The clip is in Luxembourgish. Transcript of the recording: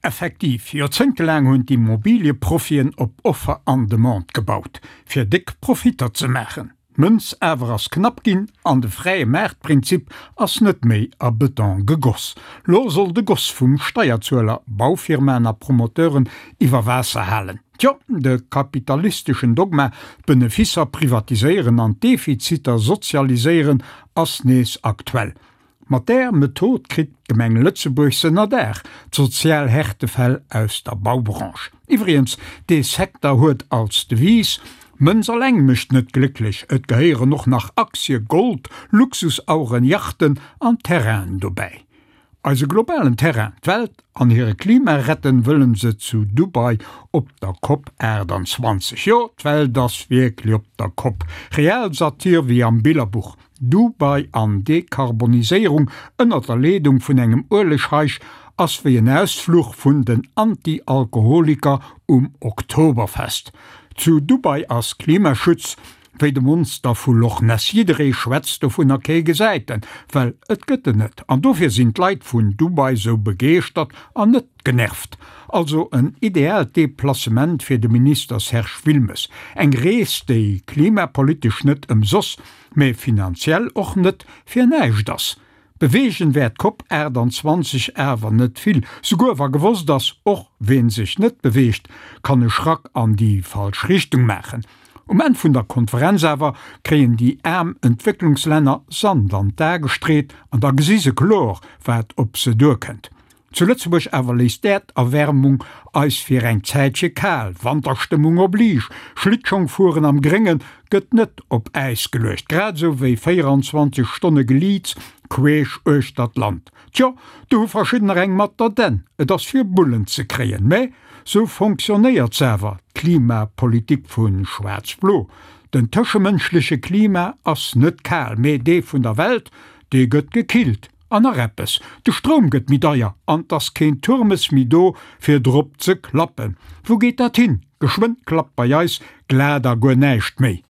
Effektiv, joerzéngtelaang hunn d'Immobilieprofien op Offer an Demande gebaut, fir déck Profitter ze maachen. D'Mënz awer ass knapp ginn an de fräie Maartprinzip ass net méi a Beton gegoss. Lo soll de Goss vum Steierzueler Baufirmaen a Promoteuren iwwer Waasser halen. Tjo, de kapitalisteschen Dogma, d'Beneficer privatiséieren an d'Defiziter sozialiséieren, ass nees aktuell. Mat där Method kritt d'Gemeng Lëtzebuerg se ënnerdaach, d'sozial Härtefäll aus der Baubranche. Iwwregens, dee Secteur huet als Devise, Mënz alleng mécht net glécklech, et gehéieren och nach Aktie, Gold, Luxusaueren, Yachten an Terrainen dobäi. Eise globalen Terrain, d'Welt an hire Klima retten wëllen se zu Dubai op der Cop 28. Jo, d'Welt ass wierklech op der Kopp. Realsatir wéi am Billerbuch. Dubai an Dekarboniséierung ënnert der Leedung vun engem Uelegscheich ass wéi en Ausfluch vun den Anti-Alkoholiker um Oktoberfest. Zu Dubai ass Klimaschutz wéi de Monster vu Loch Ness, jidderee schwätzt dovunner, kee gesäit en, well et gëtt en net. An dofir sinn d'Leit vun Dubai sou begeeschtert an net genervt. Also en ideaalt Deplacement fir de Minister Serge Wilmes. Eng Rees, déi klimapolitesch net ëmsoss, mä finanziell och net fir näischt ass. Beweegen wäert d'Cop 28 awer net vill, souguer wa gewosst ass, och ween sech net beweegt, kann e Schrack an déi falsch Richtung maachen. Um Enn vun der Konferenz awer kréien déi aarm Entwécklungslänner Sand an d'A gestreet an da gesi se kloer, wat op se duerkënnt. Zu Lëtzebuerg awer léisst d'Äerderwärmung eis fir eng Zäitche kal, Wanterstëmmung oblige, Schlittschongfueren am Grénge gëtt net op Äis geluecht, grad esou wéi 24 Stonne Geliits queesch uechter d'Land. Tjo, do hu verschiddener eng mat der Dänn, et ass fir Bullen ze kréien, mä sou fonctionnéiert s'awer, d'Klimapolitik vu Schwaarz-Blo. Den tëschemënschleche Klima ass net kal, mä dee vun der Welt, dee gëtt gekillt. An nach eppes, de Stroum gëtt méi deier an 't ass keen Turmes méi do fir drop ze klappen. Wou geet dat hin? Geschwënn klappt bei eis glat a guer näischt méi.